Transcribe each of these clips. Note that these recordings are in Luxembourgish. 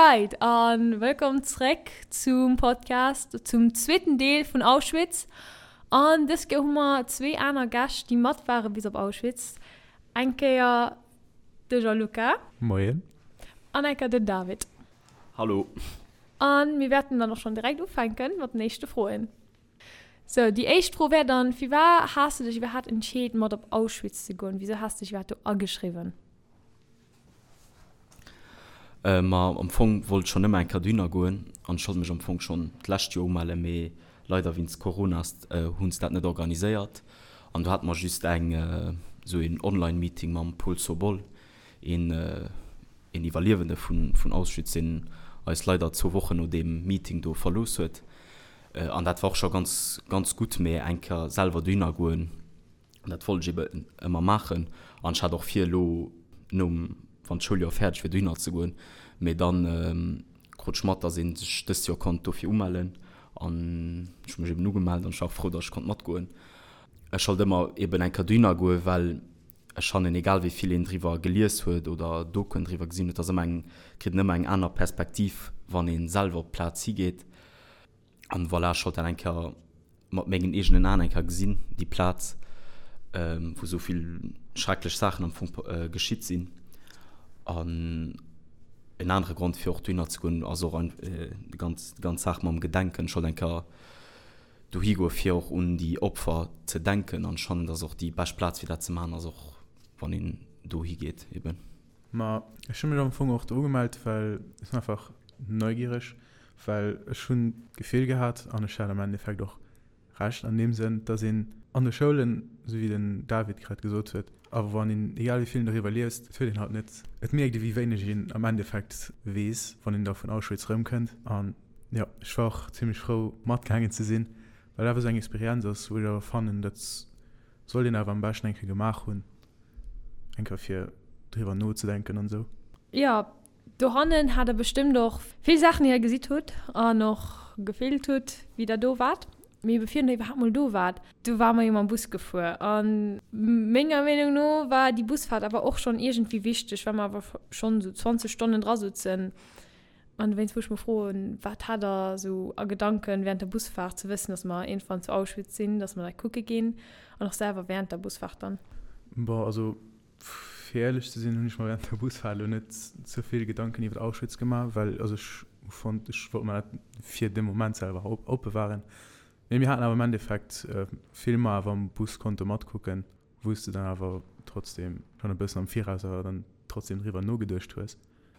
Leit a wëllkomm zréck zum Podcast, zum zweeten Deel vun Auschwitz. An dës Kéier hu mer zwee aner Gäscht, déi mat ware bis op Auschwitz. Eng Kéier de Gianluca. Moien. An eng Kéier den David. Hallo. An mir wäerten dann och schonn direkt ufänken mat den éischte Froen. Sou, déi éischt Fro wär dann, Firwat has de dech iwwerhaapt entscheet mat op Auschwitz ze goen? Wisou has de dech iwwerhaapt do ageschriwwen? Ma am Fong wollt ech schonn ëmmer eng Kéier dohinner goen an ech wollt mech am Fong schonn d'lescht Joer umellen, mee leider wéinst Corona hunn se dat net organiséiert an do hate mer just eng esou een Online-Meeting mam Paul Sobol, een een Iwwerliewende vun Auschwitz, deen eis leider zwou Wochen no deem Meeting do verlooss huet. An dat war och scho ganz, ganz gutt, mee eng Kéier selwer dohinner goen, dat wollt ech ebe ëmmer maachen. An ech hat och vir, elo nom, wann d'Schouljoer fäerdeg wier, dohinner ze goen. Mee dann krut ech mat, datt ee sech dëst Joer konnt dofir umellen. An ech hu mech eben ugemellt an ech war och frou, datt ech konnt matgoen. Ech wollt ëmmer eben eng Kéier dohinner goen, well ech fannen, egal wéi vill een driwwer gelies huet oder Dokuen driwwer gesinn huet, ass ëmmer eng, kritt een ëmmer eng aner Perspektiv, wann ee selwer op d'Plaz higeet. An voilà, ech wollt dat eng Kéier mat mengen eegenen Aen eng Kéier gesinn, déi Plaz, wou esou vill schrecklech Saachen am Fong geschitt sinn. An en anere Grond, fir och dohinner ze goen, ass och déi ganz, déi ganz Saach mam Gedenken. Ech wollt eng Kéier dohi goen, fir och un déi Opfer ze denken. An ech fannen, dass och déi bescht Plaz, fir dat ze maachen, ass och, wann een dohi geet eben. Ma ech hu mech am Fong och do ugemellt, well ech sinn einfach neugiereg, well ech hunn d'Gefill gehat, an ech hat am Endeffekt och Recht an deem Sënn, dass een an de Schoulen, esou wéi den David grad gesot huet, awer wann een, egal wéi vill een doriwwer liest, et huet een halt net, et mierkt ee wéi wéineg een am Endeffekt weess, wann een da vun Auschwitz erëmkënnt. An jo, ech war och zimlech frou matgaangen ze sinn, well awer esou eng Experienz ass, wou ech awer fannen, dat sollt een awer am beschten eng Kéier gemaach hunn. Eng Kéier fir driwwer nozedenken an esou. Jo, dohannen hat der bestëmmt och vill Saachen déi der gesitt hutt an och gefillt hutt wéi der do waart. Mee bevir der iwwerhaapt mol do waart, du ware mer jo mam Bus gefuer an menger Meenung no war déi Busfahrt awer och schonn iergendwéi wichteg, well mer awer schonn esou 20 Stonnen dra sutzen. An dowéinst wou ech mer froen, wat hat der esou a Gedanken während der Busfahrt, ze wëssen, dass mer iergendwann zu Auschwitz sinn, dass mer dat kucke ginn an och selwer während der Busfahrt dann? Bon, also fir éierlech ze sinn, hunn ech mer während der Busfahrt elo net ze vill Gedanken iwwer Auschwitz gemaach, well also ech hu fonnt, ech wollt mer dat fir de Moment selwer opbewahren. Mee mir haten awer am Endeffekt Filmer awer am Bus konnte matkucken, wou s de dann awer trotzdem schonn e bëssen am Viraus awer dann trotzdem driwwer nogeduecht hues.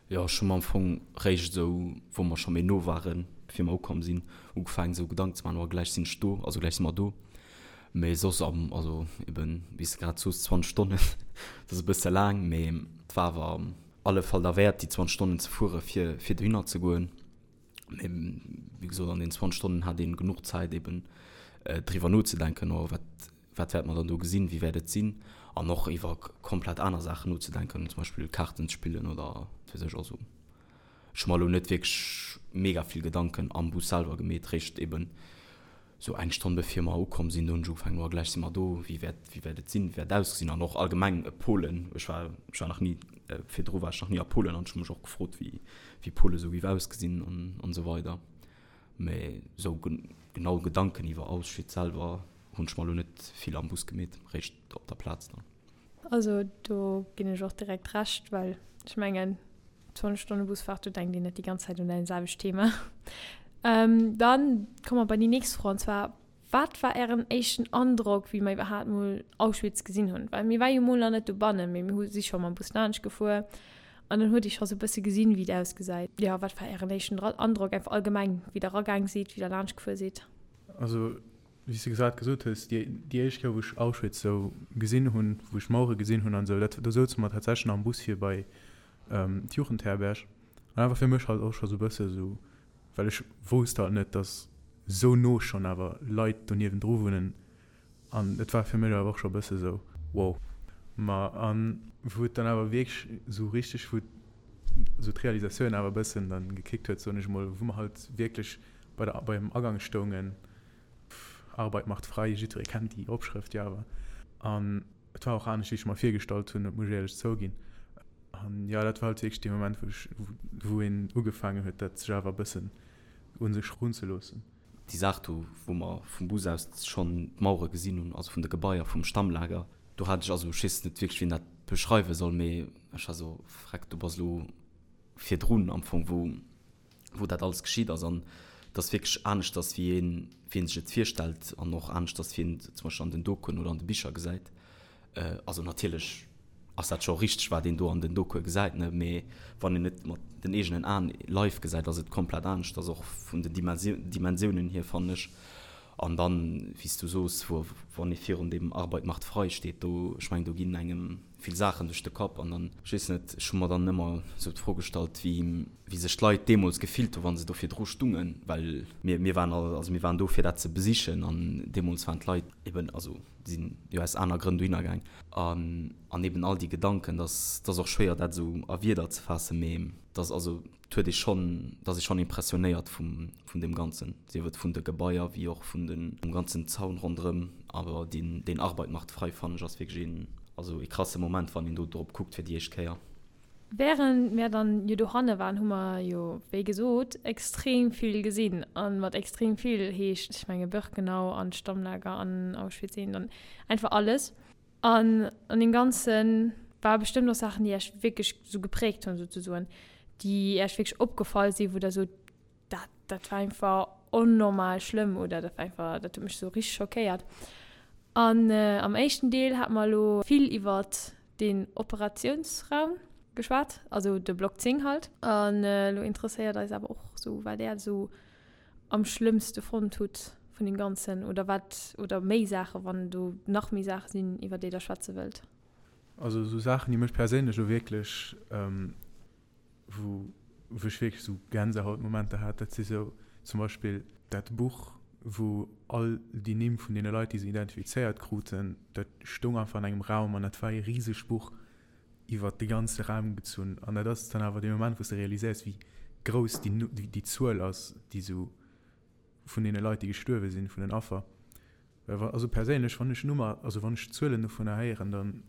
Jo, ech hu mer am Fong réischt esou, wou mer scho méi no waren, bevir mer ukomm sinn, ugefaangen esou Gedanken ze maachen, oh gläich sinn ech do, also gläich si mer do. Mee soss am, also eben, wéi s de grad soos, 20 Stonnen, dat ass e bësse laang, mee et war awer am alle Fall derwäert, déi 20 Stonnen ze fuere fir, fir dohinner ze goen. Mee wéi gesot, an deenen 20 Stonnen hat een genuch Zäit eben driwwer nozedenken, oh wat, Wat wäerte mer dann do gesinn, wéi wäert et sinn? An och iwwer komplett aner Saachen nozedenken, zum Beispill Kaarten ze spillen oder wat weess ech. Also ech hu mer elo net wierklech mega vill Gedanken am Bus selwer gemeet, réischt eben sou eng Stonn bevir mer ukomm sinn, do hunn ech ugefaangen, oh gläich si mer do, wéi wäert, wéi wäert et sinn, wéi wäert et ausgesinn? An och allgemeng Polen, ech war, ech war nach ni, virdru war ech nach ni a Polen an ech hu mech och gefrot, wéi, wéi Pole sou géif ausgesinn an, an esou weider. Mee sou genau Gedanken iwwer Auschwitz selwer hunn ech mer elo net vill am Bus gemeet, réischt op der Plaz dann. Also do ginn ech och direkt Recht, well ech mengen 20 Stonne Busfahrt, do denkt een net déi ganz Zäit un dat selwecht Thema. Dann komme mer bei déi nächst Fro, an zwar, Wat war ären éischten Androck, wéi mer iwwerhaapt mol Auschwitz gesinn hunn? Well mir war jo mol nach net dobannen, mee mir hu si scho mam Bus laanscht gefuer an dann huet ee scho sou e bësse gesinn, wéi et ausgesäit. Jo, wat war ären éischten Androck einfach allgemeng, wéi der eragaang sidd, wéi der laanscht gefuer sidd? Also wéi s de grad gesot hues, déi déi éischt Kéier wou ech Auschwitz sou gesinn hunn, wou ech d'Mauere gesinn hunn an esou, dat do souze mer tatsächlech nach am Bus fir bei d'Jugendherberg an dat war fir mech halt och scho sou e bësse sou, well ech wousst halt net, dass sou no schonn awer Leit do niewendru wunnen an et war fir mech awer och scho e bësse sou wow. Ma an wou et dann awer wierklech sou richteg, wou sou d'Realisatioun awer e bëssen dann gekickt huet, soen ech emol, wou mer halt wierklech bei der beim Agang stoungen, Arbeit macht frei, jiddweree kennt déi Opschrëft jo awer, an et war och anescht wéi ech mer virgestallt hunn, dat muss ech éierlech zouginn. An jo, dat war halt wierklech dee Moment, wou ech, wou een ugefaangen huet, dat sech awer e bëssen un sech erunzeloossen. Déi Saach do, wou mer vum Bus aus schonn d'Mauere gesinn hunn, also vun de Gebaier vum Stammlager, do hat ech, also ech weess net wierklech, wéi een dat beschreiwe soll, mee ech war esou, Freck, du bass elo virdrun am Fong, wou, wou dat alles geschitt ass. An et ass wierklech aneschters, wéi een, wéi een sech et virstellt an och aneschters, wéi een et zum Beispill an den Dokuen oder an de Bicher gesäit. Also natierlech ass dat scho richteg, wat een do an den Dokue gesäit, ne, mee wann een et mat den eegenen Aen live gesäit, ass et komplett aneschters, och vun den Dimensiounen hier, fannen ech. An dann, wéi s du soos, wou, wann ee virun deem Arbeit macht frei steet, do, ech mengen, do ginn engem vill Saachen duerch de Kapp. An dann, ech weess net, ech hu mer dann ëmmer esou d'Fro gestallt, wéi, wéi sech d'Leit deemools gefillt hu wa se do virdru stungen, well mir, mir waren all, also mir waren do fir dat ze besichen an deemools waren d'Leit eben, also sinn jo aus aner Grënn dohinner gaang. An, an eben all déi Gedanken, dass, dass och schwéier dat esou a Wierder ze faassen, mee dass, also et huet ee schonn, et ass ee schonn impressionéiert vum, vun deem Ganzen, sief et vun de Gebaier wéi och vun den, vum ganzen Zaun ronderëm. Awer deen, deen Arbeit macht frei fannen ech ass wierklech een, also ee krasse Moment, wann een do drop kuckt fir déi éischt Kéier. Während mär dann jo dohanne waren, hu mer jo, wéi gesot, extrem vill gesinn. A mat extrem vill heescht, ech menge Birkenau an d'Stammlager an Auschwitz I an einfach alles. An an deem Ganze ware bestëmmt och Saachen, déi Iech wierklech sou gepräägt hunn, souzesoen, déi Iech wierklech opgefall sinn, wou Der sot, dat, dat war einfach onnormal schlëmm oder dat war einfach, dat huet mech sou richteg schockéiert. An am éischten Deel hate mer elo vill iwwert den Operatiounsraum geschwat, also de Block 10 halt. An elo interesséiert eis awer och sou, wat Är sou am schlëmmste fonnt hutt vun deem Ganzen oder wat, oder méi Saachen, wann do nach méi Saache sinn, iwwer déi Der schwätze wëllt. Also sou Saachen, déi mech perséinlech elo wierklech, wou wou ech wierklech sou Gänsehautmomenter hat, dat si sou zum Beispill dat Buch, wou all déi Nimm vun deene Leit, déi se identifizéiert kruten, dat stoung einfach an engem Raum an dat war ee risegt Buch iwwert de ganze Raum gezunn. An dat ass dann awer dee Moment, wou s de realiséiers, wéi grouss déi déi Zuel ass, déi sou vun deene Leit, déi gestuerwe sinn, vun den Affer. Well wa, also perséinlech, wann ech Nummer, also wann ech Zuelen dovunner héieren, dann,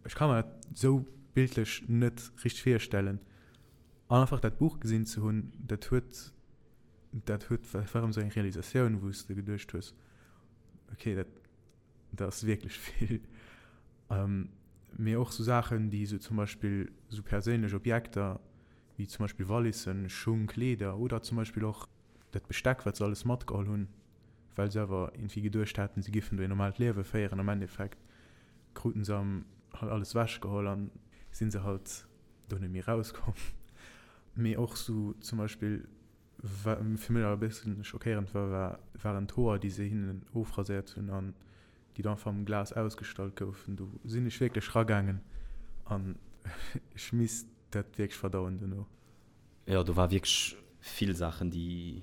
Ech ka mer dat sou bildlech net richteg virstellen. An einfach dat Buch gesinn ze hunn, dat huet, dat huet, dat war erëm sou eng Realisatioun, wou s de geduecht hues, okay, dat, dat ass wierklech vill. Mee och sou Saachen, déi sou zum Beispill sou perséinlech Objekter, wéi zum Beispill Wallissen, Schung, Kleeder oder zum Beispill och dat Besteck, wat se alles matgeholl hunn, well se awer iergendwéi geduecht haten, se giffen do een normaalt Liewe féieren. Am Endeffekt kruten se am halt alles wech geholl an sinn se halt do net méi rauskomm. Mee och sou zum Beispill wat fir mech awer e bëssen schockéierend war, war waren d'Hoer déi se hinnen ofraséiert hunn an déi do einfach am Glas ausgestallt goufen. Do sinn ech wierklech ragaangen an ech misst dat wierklech verdauen dono. Jo do war wierklech vill Saachen déi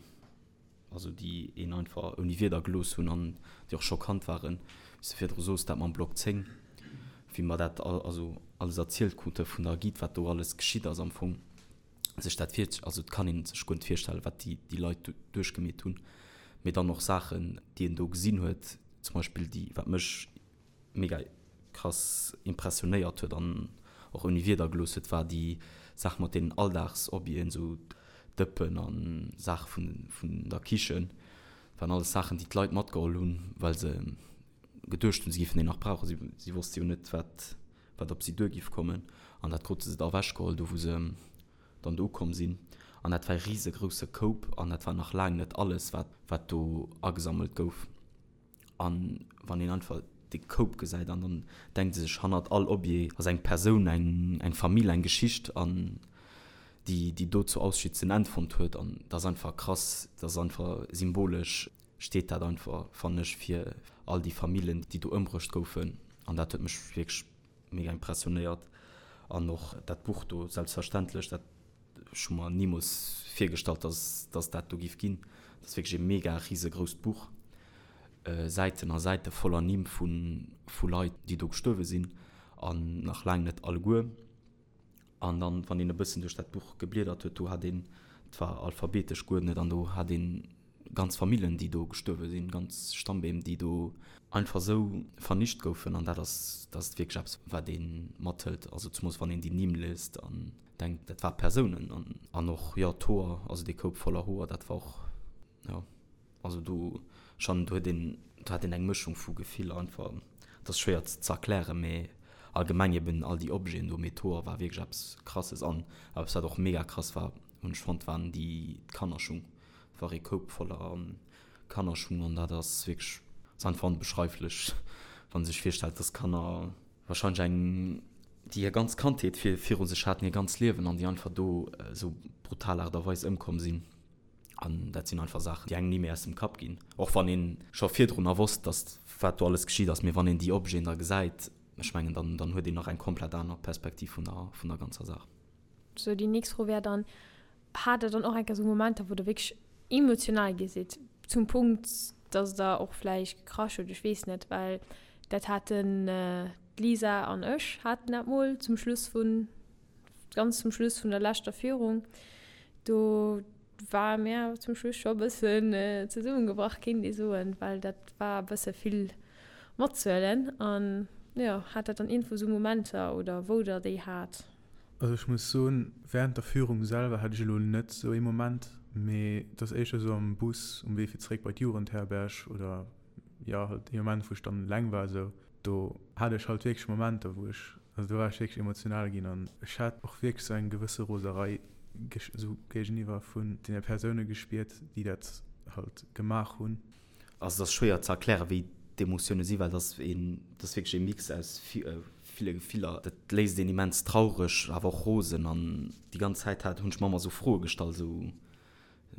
also déi een einfach ouni Wierder gelooss hunn an déi och schockant waren, wéi s de virdru soos, dat mam Block 10, wéi mer dat also alles erzielt krute vun der Guide, wat do alles geschitt ass am Fong, sech dat vir, also et kann ee sech guer net virstellen, wat déi déi Leit do duerchgemeet hunn, mee dann och Saachen, déi een do gesinn huet, zum Beispill déi, wat mech mega krass impressionéiert huet an och ouni Wierder gelooss huet, war déi Saach mat deenen Alldagsobjeten, sou Dëppen a Saache vun vun der Kichen. Dat waren alles Saachen, déi d'Leit matgeholl hunn, well se geduecht hunn, se géifen déi nach brauchen. Si si wosste jo net, wat wat op si duer géif kommen. An dat krute se da ewechgeholl, do wou se dann do ukomm sinn. An dat war e risegrousse Koup an dat war nach laang net alles, wat wat do agesammelt gouf. An wann een einfach dee Koup gesäit an dann denkt ee sech, hannert all Objet ass eng Persoun, eng, eng Famill, eng Geschicht an déi, déi do zu Auschwitz en Enn fonnt huet. An dat ass einfach krass, dat ass einfach symbolesch steet dat einfach, fannen ech, fir all déi Famillen, déi do ëmbruecht goufen. An dat huet mech wierklech mega impressionéiert. An och dat Buch do, selbstverständlech, dat Ech hu mer nimools virgestallt, dass dass dat do giff ginn. Dat ass wierklech e mega risegrousst Buch. Säiten a Säite voller Nimm vu vu Leit, déi do gestuerwe sinn, an nach laang net alleguer. An dann, wann een e bëssen duerch dat Buch gebliedert huet, do hat een, et war alphabetesch geuerdnet, an do hat een. Ganz Famillen, déi do gestuerwe sinn, ganz Stammbeem, déi do einfach esou vernicht goufen. An dat ass, dat ass wierklech eppes, wat ee mathëlt. Also zemools wann een déi Nimm liest an denkt, dat ware Persounen. An, an och, jo, d'Hoer, also dee Koup voller Hoer, dat war och, jo. Also do schon, do huet een, do hat een eng Mëschung vu Gefiller einfach. Et ass schwéier ze erklären, mee allgemeng eben all déi Objeten do, mee d'Hoer war wierklech eppes Krasses. An eppes wat och mega krass war, hunn ech fonnt, waren déi d'Kannerschung. Et war ee Koup voller Kannerschung an dat ass wierklech, ass einfach onbeschreiflech, wann ee sech virstellt, dass Kanner wahrscheinlech eng, déi hir ganz Kandheet viru sech haten, hir ganz Liewen an déi einfach do esou brutal Aart a Weis ëmkomm sinn. An dat sinn einfach Saachen, déi engem ni méi aus dem Kapp ginn. Och wann ee scho virdrunner wosst, datt wat do alles geschitt ass, mee wann een déi Objeten da gesäit, ech mengen, dann, dann huet een nach eng komplett aner Perspektiv vun der, vun der ganzer Saach. Sou, déi nächst Fro wär dann, Hat Der dann och eng Kéier sou Momenter, wou Der wierklech emotional gi sidd, zum Punkt, datt Der och vläicht gekrasch hutt? Ech weess net, well dat haten d'Lisa an ech haten dat mol zum Schluss vun Ganz zum Schluss vun der leschter Führung, do ware mir zum Schluss scho e bëssen zesummegebrach, kéint ee soen, well dat war e bësse vill matzuelen. An jo, hat dat dann iergendwou esou Momenter oder wou Der déi hat? Also ech muss soen, während der Führung selwer hat ech elo net esou ee Moment, mee et ass éischter esou am Bus um Wee fir zeréck bei d'Jugendherberg oder jo halt ee Moment wou ech dann eleng war esou, do hat ech halt wierklech Momenter wou ech, also do war ech wierklech emotional ginn an ech hat och wierklech sou eng gewësse Roserei sou géigeniwwer vun deene Persoune gespiert, déi dat halt gemaach hunn. Also et ass schwéier ze erklären, wéi d'Emotioune sinn, well et ass een, et ass wierklech ee Mix aus ville Gefiller. Dat léisst een immens traureg, awer och rosen an déi ganz Zäit hat, hunn ech mer ëmmer sou Froe gestallt, sou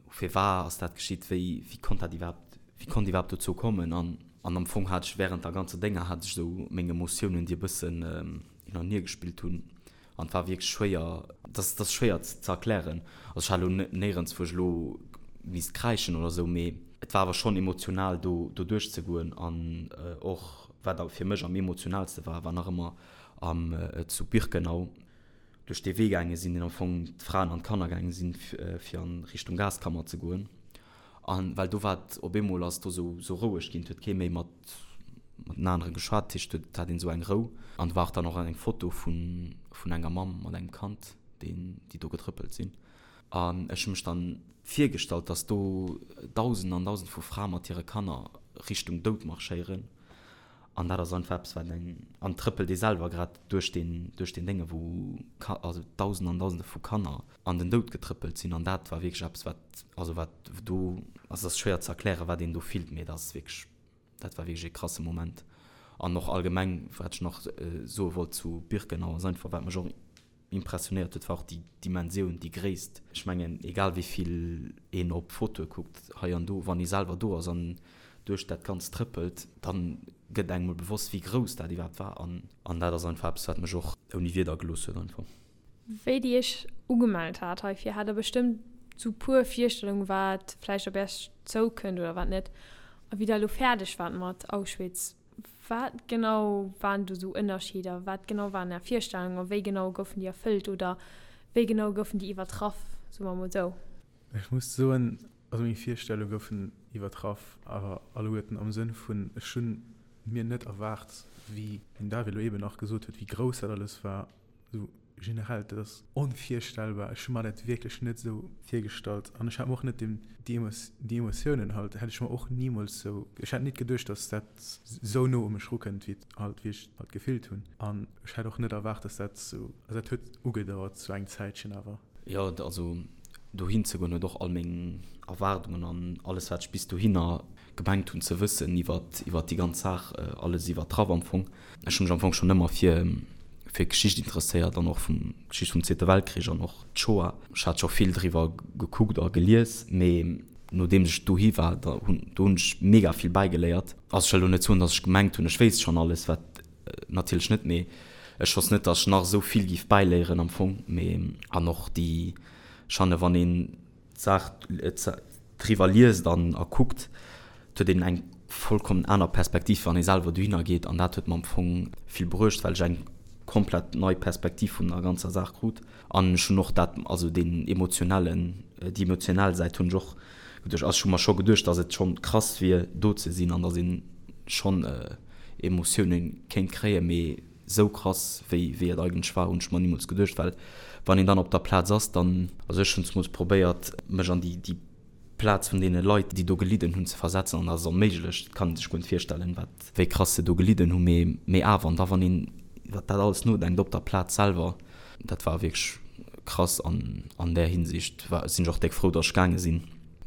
Firwar ass dat geschitt? Wéi, wéi konnt dat iwwerhaapt, wéi konnt iwwerhaapt dozou kommen? An, an am Fong hat ech während der ganzer Dénger hat ech esou meng Emotiounen, déi e bëssen hin an hier gespillt hunn. An et war wierklech schwéier, dat ass, dat ass schwéier ze erklären. Also ech hat elo néierens, wou ech elo misst kräischen oder esou, mee et war awer schonn emotional do, do duerchzegoen. An och wat fir mech am emotionalste war, war nach ëmmer am, zu Birkenau, duerch dee Wee gaange sinn, deen am Fong d'Fraen an d'Kanner gaange sinn, fir an Richtung Gaskammer ze goen. An well do war et op eemol ass do sou sou roueg ginn, et huet kee méi mat mat den anere geschwat, dat heescht et hat een esou eng Rou. An do war och dann och eng Foto vun vun enger Mamm mat engem Kand, deen déi do getrëppelt sinn. An ech hu mech dann virgestallt, datt do Dausenden an Dausende vu Frae mat hire Kanner Richtung Doud marschéieren. An dat ass einfach eppes, wat eng, an trëppelt ee selwer grad duerch deen, duerch deen Dénge wou Ka, also Dausende an Dausende vu Kanner an den Doud getrëppelt sinn. An dat war wierklech eppes, wat, also wat do, also et ass schwéier ze erklären, wat een do fillt, mee dat ass wierklech, dat war wierklech ee krasse Moment. An och allgemeng, wat ech nach soe wollt zu Birkenau, ass einfach, wat mech och impressionéiert huet, war och déi Dimensioun, déi Gréisst. Ech mengen, egal wéi vill een op Fotoe kuckt, hei an do, wann ee selwer do ass an duerch dat Ganzt trëppelt, da gëtt engem mol bewosst, wéi grouss dat iwwerhaapt war. An an dat ass einfach eppes, wat mech och ouni Wierder gelooss huet einfach. Wéi Dir Iech ugemellt hat heifir, hat Der bestëmmt sou puer Virstellungen, wat vläicht op Iech zoukënnt oder wat net. A wéi Der elo fäerdeg waart mat Auschwitz, Wat genau waren do sou Ënnerscheeder? Wat genau waren Är Virstellungen a wéi genau goufen déi erfëllt oder wéi genau goufen déi iwwertraff, soe mer emol sou? Ech muss soen, also meng Virstellunge goufen iwwertraff, awer alleguerten am Sënn vun, ech hunn mir net erwaart, wéi den David elo eeben nach gesot huet, wéi grouss dat alles war. Esou generell, dat ass onvirstellbar. Ech hu mer dat wierklech net esou virgestallt an ech hat mer och net déi déi Emotiounen halt hätt ech mer och nimools esou, ech hätt nit geduecht, datt dat esou no u mech rukënnt, wéi et halt, wéi ech halt gefillt hunn. An ech hätt och net erwaart, datt dat esou, also dat huet ugedauert sou eng Zäitchen awer. Jo, also dohin ze goen huet och all meng Erwaardungen an alles wat ech bis dohinner gemengt hunn ze wëssen iwwert iwwert déi ganz Saach alles iwwertraff am Fong. Ech hu mech am Fong schonn ëmmer fir fir Geschicht interesséiert an och vum Geschicht vum Zweete Weltkrich an och d'Shoah. Ech hat scho vill driwwer gekuckt a gelies, mee nodeems ech dohi war, da hunn do hunn ech mega vill bäigeléiert. Also ech wëll elo net soen, datt ech gemengt hunn, ech wéisst schonn alles, wat natierlech net, mee ech wosst net, datt ech nach esou vill géif bäiléieren am Fong. Mee an och déi Schanne wann een d'Saach driwwer liest an a kuckt, et huet een eng vollkommen aner Perspektiv, wann ee selwer dohinner geet. An dat huet mer am Fong vill bruecht, well ech eng komplett nei Perspektiv vun der ganzer Saach krut. An ech hunn och dat, also deen emotionellen, déi emotionell Säit hunn ech och. geduecht. Also ech hu mer scho geduecht, dass et schonn krass wier do ze sinn an dass een schonn Emotioune kéint kréien, mee sou krass wéi wéi et eigentlech war hunn ech mer nimools geduecht, well wann een dann op der Plaz ass, dann, also ech hunn zemools probéiert mech an déi déi Plaz vun deene Leit déi do gelidden hunn ze versetzen an dat ass onméiglech, dat kann ee sech guer net virstellen wat wéi krass se do gelidden hunn, mee mee awer an da wann een iwwer dat alles nodenkt op der Plaz selwer, dat war wierklech krass an an där Hinsicht war sinn ech och déck frou datt ech gaange sinn.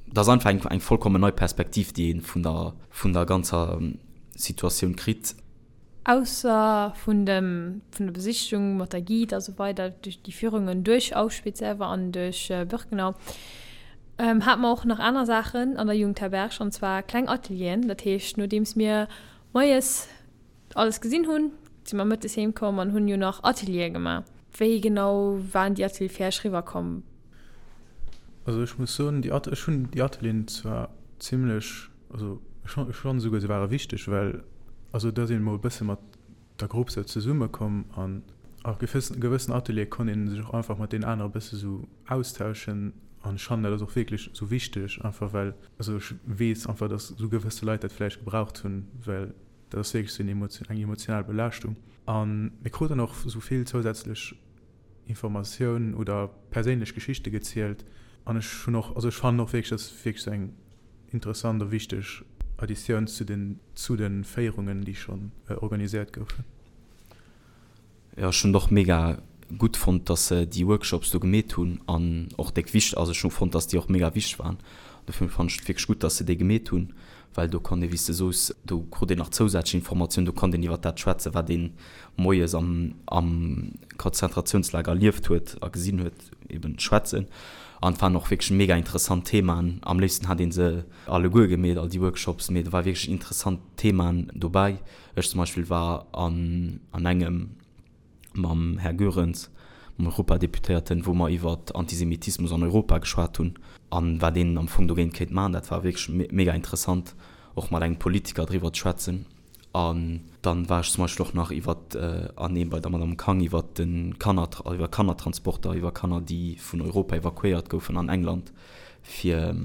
Dat ass einfach eng eng vollkommen nei Perspektiv déi ee vun der vun der ganzer Situatioun kritt. Ausser vun dem, vun der Besichtigung mat der Guide a sou weider, duerch déi Führungen duerch Auschwitz selwer an duerch Birkenau, hate mer och nach aner Saachen an der Jugendherberg, an zwar kleng Atelieren. Dat heescht, nodeems mir moies alles gesinn hunn, si mer mëttes heem komm an hunn jo nach Ateliere gemaach. Wéi genau waren déi Ateliere fir Iech riwwerkomm? Also ech muss soen, déi At, ech hunn déi Atelieren zwar zimlech Also ech ech fannen esouguer se ware wichteg, well also et ass een emol e bësse mat der Grupp sou zesumme komm an a gewëssen gewëssen Ateliere konnt een sech och einfach mat deenen anere bësse sou austauschen an ech fannen dat ass och wierklech sou wichteg einfach well also ech weess einfach dass sou gewësse Leit dat vläicht gebraucht hunn, well dat ass wierklech sou en emotio eng emotional Belaaschtung an mir kruten och sou vill zousätzlech Informatiounen oder perséinlech Geschichte gezielt an ech hunn och, also ech fannen och wierklech, dass wierklech sou eng interessant a wichteg Additioun zu den zu de Féierungen, déi schonn organiséiert goufen. Jo, ech hunn et och mega gutt fonnt, dass se déi Workshops do gemeet hunn an och déck wichteg, also ech hu fonnt, dass déi och mega wichteg waren. Dofir fannen ech et wierklech gutt, dass se déi gemeet hunn, well do konnt ee, wéi s de soos, do krut een nach zousätzlech Informatioun, do konnt een iwwer dat schwätzen, wat een moies am am Konzentratiounslager erlieft huet a gesinn huet, eben schwätzen. An et waren och wierklech mega interessant Themaen. Am léifsten hat ee se alleguer gemeet, all déi Workshops, mee do war wierklech interessant Themaen dobäi. Ech zum Beispill war an an engem mam Här Goerens, mam Europadeputéierten, wou mer iwwer Antisemitismus an Europa geschwat hunn a wat een am Fong dogéint kéint maachen. Dat war wierklech mega interessant, och mat engem Politiker driwwer ze schwätzen. An dann war ech zum Beispill och nach iwwer an eem bei der Madame Kang iwwer de Kanner, iwwer Kannertransporter, iwwer Kanner, déi vun Europa evakuéiert goufen an England, fir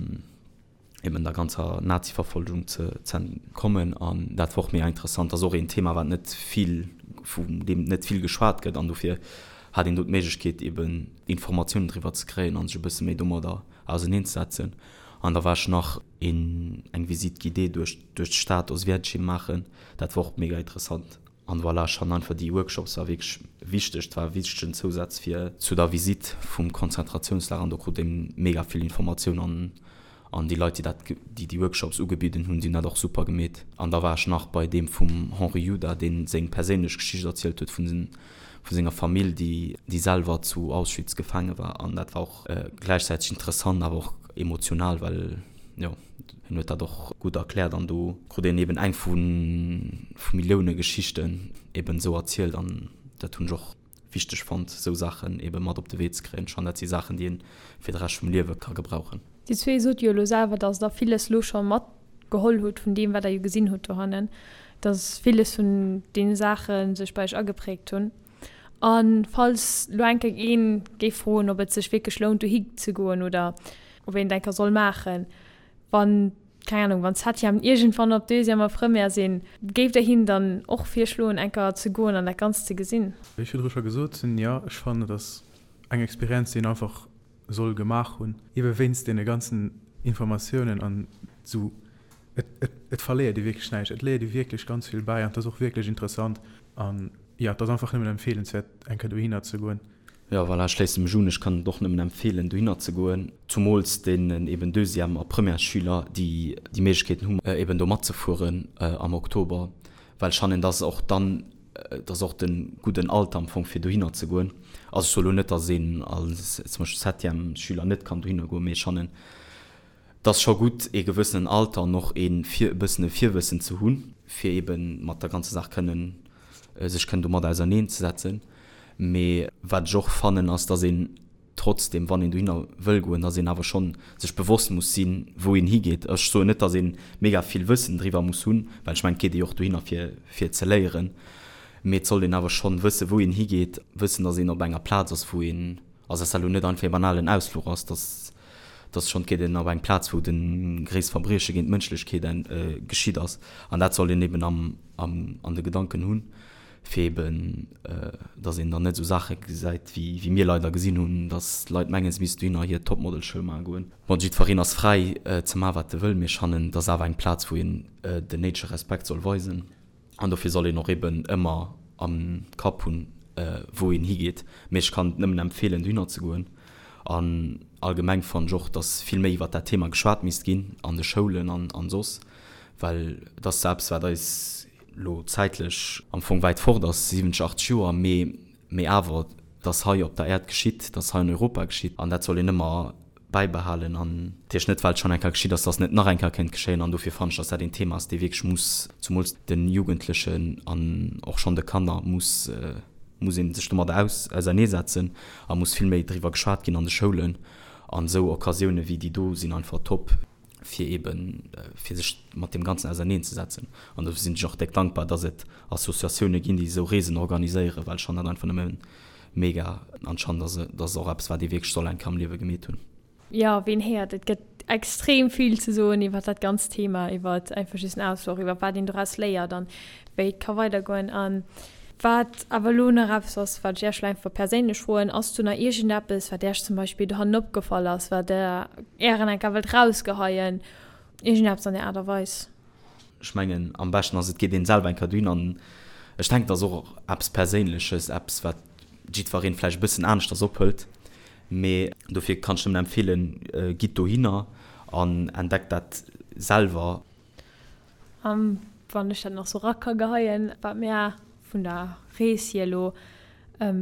eben der ganzer Naziverfolgung ze entkommen. An dat war och mega interessant. Dat ass och een Thema, wat net vill, vun deem net vill geschwat gëtt. An dofir hat een do d'Méiglechkeet, eben Informatiounen driwwer ze kréien a sech e bësse méi domadder auserneenzesetzen. An da war ech nach een, eng Visite guidée duerch, duerch d'Stad Oswiecim maachen. Dat war och mega interessant. An voilà, ech fannen einfach déi Workshops war wierklech wichteg, et war e wichtegen Zousaz fir zu der Visite vum Konzentrationslager an do krut een mega vill Informatioun an an déi Leit déi dat déi déi Workshops ugebidden hunn, déi hunn dat och super gemeet. An da war ech nach bei deem vum Henri Juda, deen seng perséinlech Geschicht erzielt huet vun vu senger Famill déi déi selwer zu Auschwitz gefaange war an dat war och gläichzäiteg interessant awer och emotional, well jo. Hien huet dat och gutt erkläert an do krut een eben eng vu vu Millioune Geschichten eben esou erzielt an dat hunn ech och wichteg fonnt, esou Saachen eben mat op de Wee ze kréien. Ech fannen dat si Saachen, déi een fir de Rescht vum Liewe ka gebrauchen. Dir zwee sot jo elo selwer, dass der villes elo scho matgeholl hutt vun deem, wat der jo gesinn hutt dohannen, dass villes vun deene Saache sech bei iech ageprägt hunn. A falls lo eng Kéier een géif froen, ob et sech wierklech lount dohi ze goen oder ob een et eng Kéier soll maachen, wann, keng Ahnung, wann d'Septièmen iergendwann op Deuxième a Première sinn, géift Der hinnen dann och virschloen eng Kéier ze goen an dat Ganzt ze gesinn? Wéi ech virdru scho gesot hunn, jo, ech fannen et ass eng Experienz déi een einfach soll gemaach hunn, ebe wéinst deene ganzen Informatiounen an esou. Et, et, et verléiert ee wierklech näischt, et léiert ee wierklech ganz vill bäi an et ass och wierklech interessant an jo, et ass einfach nëmmen empfeelenswäert eng Kéier dohinner ze goen. Jo, voilà, ech schléisse mech un. Ech kann et och nëmmen empfeelen dohinner ze goen, zumools deenen eben Deuxième a Premièresschüler, déi déi Méiglechkeeten hunn eben do matzefueren am Oktober, well ech fannen, dass och dann, et ass och de gudden Alter am Fong fir dohinner ze goen. Also ech soe lo net, dass een als zum Beispill Septièmesschüler net kann dohinner goen, mee ech fannen, Et ass scho gutt, ee gewëssenen Alter an och ee e bëssen e Virwëssen ze hunn, fir eebe mat der ganzer Saach kënnen, sech kënnen domat auserneenzesetzen. Mee wat ech och fannen, ass, dass een trotzdem, wann een dohinner wëll goen, dass een awer schonn sech bewosst muss sinn, wou een higeet. Ech soen net, dass ee mega vill Wëssen driwwer muss hunn, well ech mengen, et geet ee jo och dohinner, fir, fir ze léieren. Mee et sollt een awer schonn wëssen, wou een higeet, wëssen, dass een op enger Plaz ass, wou een, also dass dat elo net einfach ee banalen Ausfluch ass, dass. Et ass schonn, et geet een op eng Plaz, wou de gréisst Verbrieche géint d'Mënschlechkeet geschitt ass. An dat soll een eben am, am, an de Gedanken hunn, fir eben, dass een dann net esou Saache gesäit, wéi, wéi mir leider gesinn hunn, dass d'Leit mengen, se missten dohinner hir Topmodel-Show maache goen. Bon, jiddwereen ass fräi ze maachen, wat e wëll, mee ech fannen, et ass awer eng Plaz, wou een den néidege Respekt soll weisen. An dofir soll een och eben ëmmer am Kapp hunn, wou een higeet. Mee ech kann et nëmmen empfeelen, dohinner ze goen. An allgemeng fannen ech och, dass vill méi iwwert dat Thema geschwat misst ginn an de Schoulen an soss, well et ass zwar eppes, wat eis elo zäitlech am Fong wäit fort ass, 70, 80 Joer, mee mee awer, et ass hei op der Äerd geschitt, et ass hei an Europa geschitt an dat soll een ëmmer bäibehalen an natierlech net well et schonn eng Kéier geschitt ass, dass et net nach eng Kéier kéint geschéien an dofir fannen ech, dass dat een Thema ass, dee wierklech muss, zumools de Jugendlechen an och schonn de Kanner, muss muss ee sech domadder aus auserneesetzen a muss vill méi driwwer geschwat ginn an de Schoulen an esou Occasioune wéi déi do sinn einfach top, fir eeben fir sech mat deem Ganzen auserneenzesetzen an dofir sinn ech och déck dankbar, dass et Associatioune ginn, déi esou Reesen organiséieren, well ech fannen dat einfach nëmme Mega, anscheinend ass et ass och eppes wat ee wierklech soll eng Kéier am Liewe gemeet hunn. Jo, ween héiert, et gëtt extrem vill ze soen iwwer dat ganzt Thema, iwwer einfach just en Ausfluch, iwwer wat een doraus léiert an wéi et ka weidergoen. An wat awer elo nach eppes ass, wat ech Iech elo einfach perséinlech froen, Ass do nach iergendeppes, wat Iech zum Beispill dohannen opgefall ass, wat Der Ären eng Kéier wëllt rausgeheien, iergendeppes an där Aart a Weis? Ech mengen, am beschten ass, et geet een selwer eng Kéier dohin an ech denken, et ass och eppes Perséinleches, eppes, wat jiddwereen vläicht e bëssen aneschters ophëlt. Mee dofir kann ech nëmmen empfeelen, gitt dohinner an entdeckt dat selwer. A wann ech dat nach sou ra ka geheien, wat mär vun der Rees hier elo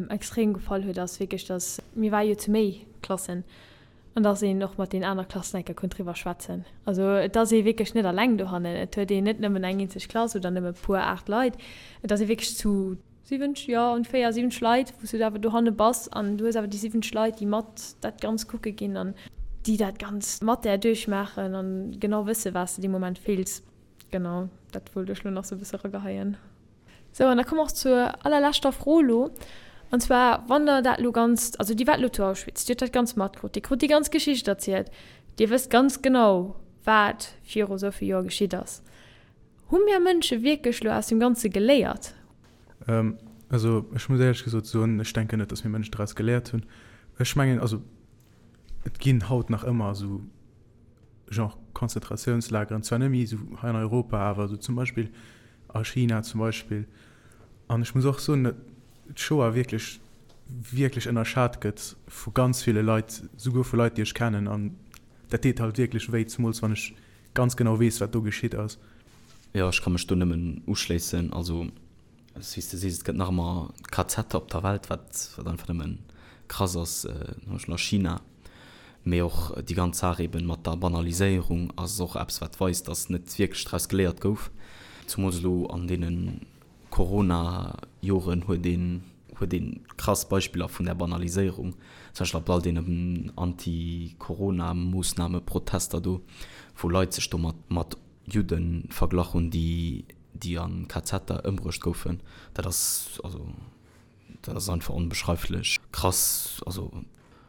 extrem gefall huet, ass wierklech, dass, mir ware jo zu méi Klassen, An dass een och mat den aner Klassen eng Kéier konnt driwwer schwätzen. Also et ass ee wierklech net alleng dohannen. Et huet een net nëmmen eng eenzeg Klass oder nëmme puer 8 Leit. Et ass ee wierklech zu 70, jo ongeféier 70 Leit, wou s du awer dohanne bass an du hues awer déi 70 Leit, déi mat dat Ganzt kucke ginn an déi dat Ganzt mat där duerchmaachen an genau wësse wat s de dee Moment fills. Genau, dat wollt ech lo nach sou e bësse erageheien. Sou, an da komme mer och zur allerleschter Fro elo, an zwar, wann Der dat elo ganz, also Dir waart elo zu Auschwitz, Dir hutt dat Ganzt matkrut, Dir krut déi ganz Geschicht erzielt, Dir wësst ganz genau, wat viru esou vill Joer geschitt ass. Hu mir Mënsche wierklech elo aus deem Ganze geléiert? Also ech muss éierlech gesot soen, ech denken net, datt mir Mënschen draus geléiert hunn. Ech mengen, also et ginn haut nach ëmmer esou Genre Konzentratiounslageren, zwar net méi esou hei an Europa, awer esou zum Beispill a China zum Beispill. An ech muss och soen, datt d'Shoah wierklech, wierklech ënnerschat gëtt vu ganz ville Leit, souguer vu Leit, déi ech kennen. An dat deet halt wierklech wéi, zemools wann ech ganz genau weess, wat do geschitt ass. Jo, ech ka mech do nëmmen uschléissen. Also Wéi s de sees, et gëtt nach ëmmer KZe op der Welt, wat wat einfach nëmme krass ass, zum Beispill a China. Mee och déi ganz Saach eeben mat der Banaliséierung ass och eppes, wat weist, datt net wierklech draus geléiert gouf. Zumools elo an deene Corona-Joren huet een huet ee krass Beispiller vun där Banaliséierung, zum Beispill ab all deenen Anti-Corona-Moossname-Protester do, wou Leit sech do mat mat Judde verglach hunn, déi déi an KZer ëmbruecht goufen, dat ass, also dat ass einfach onbeschreiflech krass. Also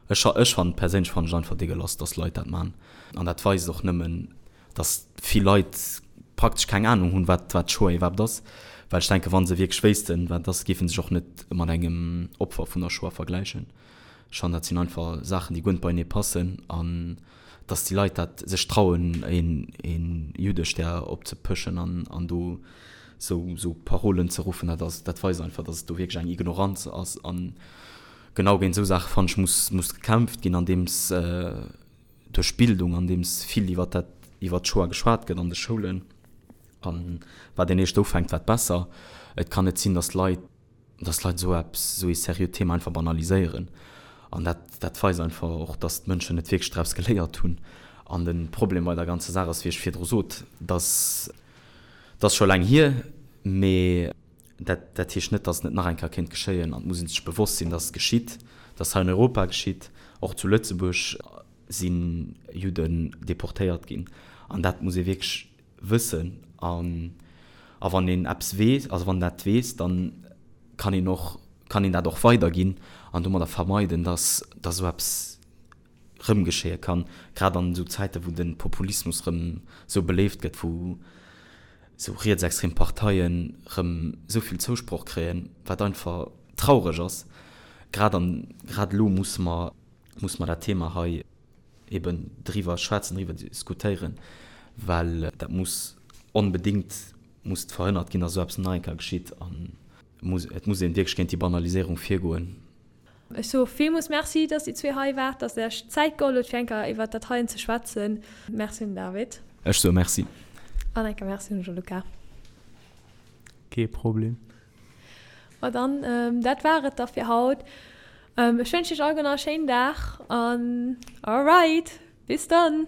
ech ech fannen, perséinlech fannen ech einfach degueulasse, dass Leit dat man. An dat weist och nëmmen, dass vill Leit praktesch keng Ahnung hunn, wat wat d'Shoah iwwerhaapt ass. Well ech denken, wa se wierklech wéissten, wat et ass, géife sech och net mat engem Opfer vun der Shoah vergläichen. Ech fannen, dat sinn einfach Saachen, déi guer net beienee passen. An dass déi Leit dat sech trauen een Juddestär opzepëschen an do sou Parolen ze ruffen, dat ass, dat weist einfach, dass et do wierklech eng Ignoranz ass. An genau géint esou Saache fannen ech muss muss gekämpft ginn, andeems duerch Bildung, andeems vill iwwer dat iwwer d'Shoah geschwat gëtt an de Schoulen. An wat een éischt ufänkt, wat besser. Et kann net sinn, dass Leit dass Leit esou eppes, esou ee seriöt Thema einfach banaliséieren. An dat, dat weist einfach och, dass d'Mënschen net wierklech draus geléiert hunn. An de Problem bei der ganzer Saach ass, wéi ech virdru sot, dass, dat ass scho laang hier, mee dat, dat heescht net, dass et net nach eng Kéier kéint geschéien. An et muss ee sech bewosst sinn, dass et geschitt, dass et hei an Europa geschitt, och zu Lëtzebuerg si Judden deportéiert ginn. An dat muss ee wierklech wëssen an a wann een eppes weess, also wann dat weess, dann kann een och, kann een dat och weiderginn an domadder vermeiden, dass dass esou eppes. rëm geschéie kann, grad an esou Zäiten, wou de Populismus rëm esou beléift gëtt, wou esou rietsextrem Parteien rëm esou vill Zousproch kréien, wat einfach traureg ass. Grad an grad elo musse mer, musse mer dat Thema hei eben driwwer schwätzen, driwwer diskutéieren, well dat muss onbedéngt muss verhënnert ginn, dass esou eppes nach eng Kéier geschitt an et muss een wierklech géint déi Banaliséierung virgoen. Ech soe villmools Merci, dass dir zwee hei waart, dass der iech d'Zäit geholl hutt, fir eng Kéier iwwert dat heien ze schwätzen. Merci un den David. Ech soe Merci. An eng Kéier Merci un de Gianluca. Kee Problem. Ma dann, dat war et da fir haut. Ech wënschen iech alleguer nach e schéinen Dag an alright, bis dann!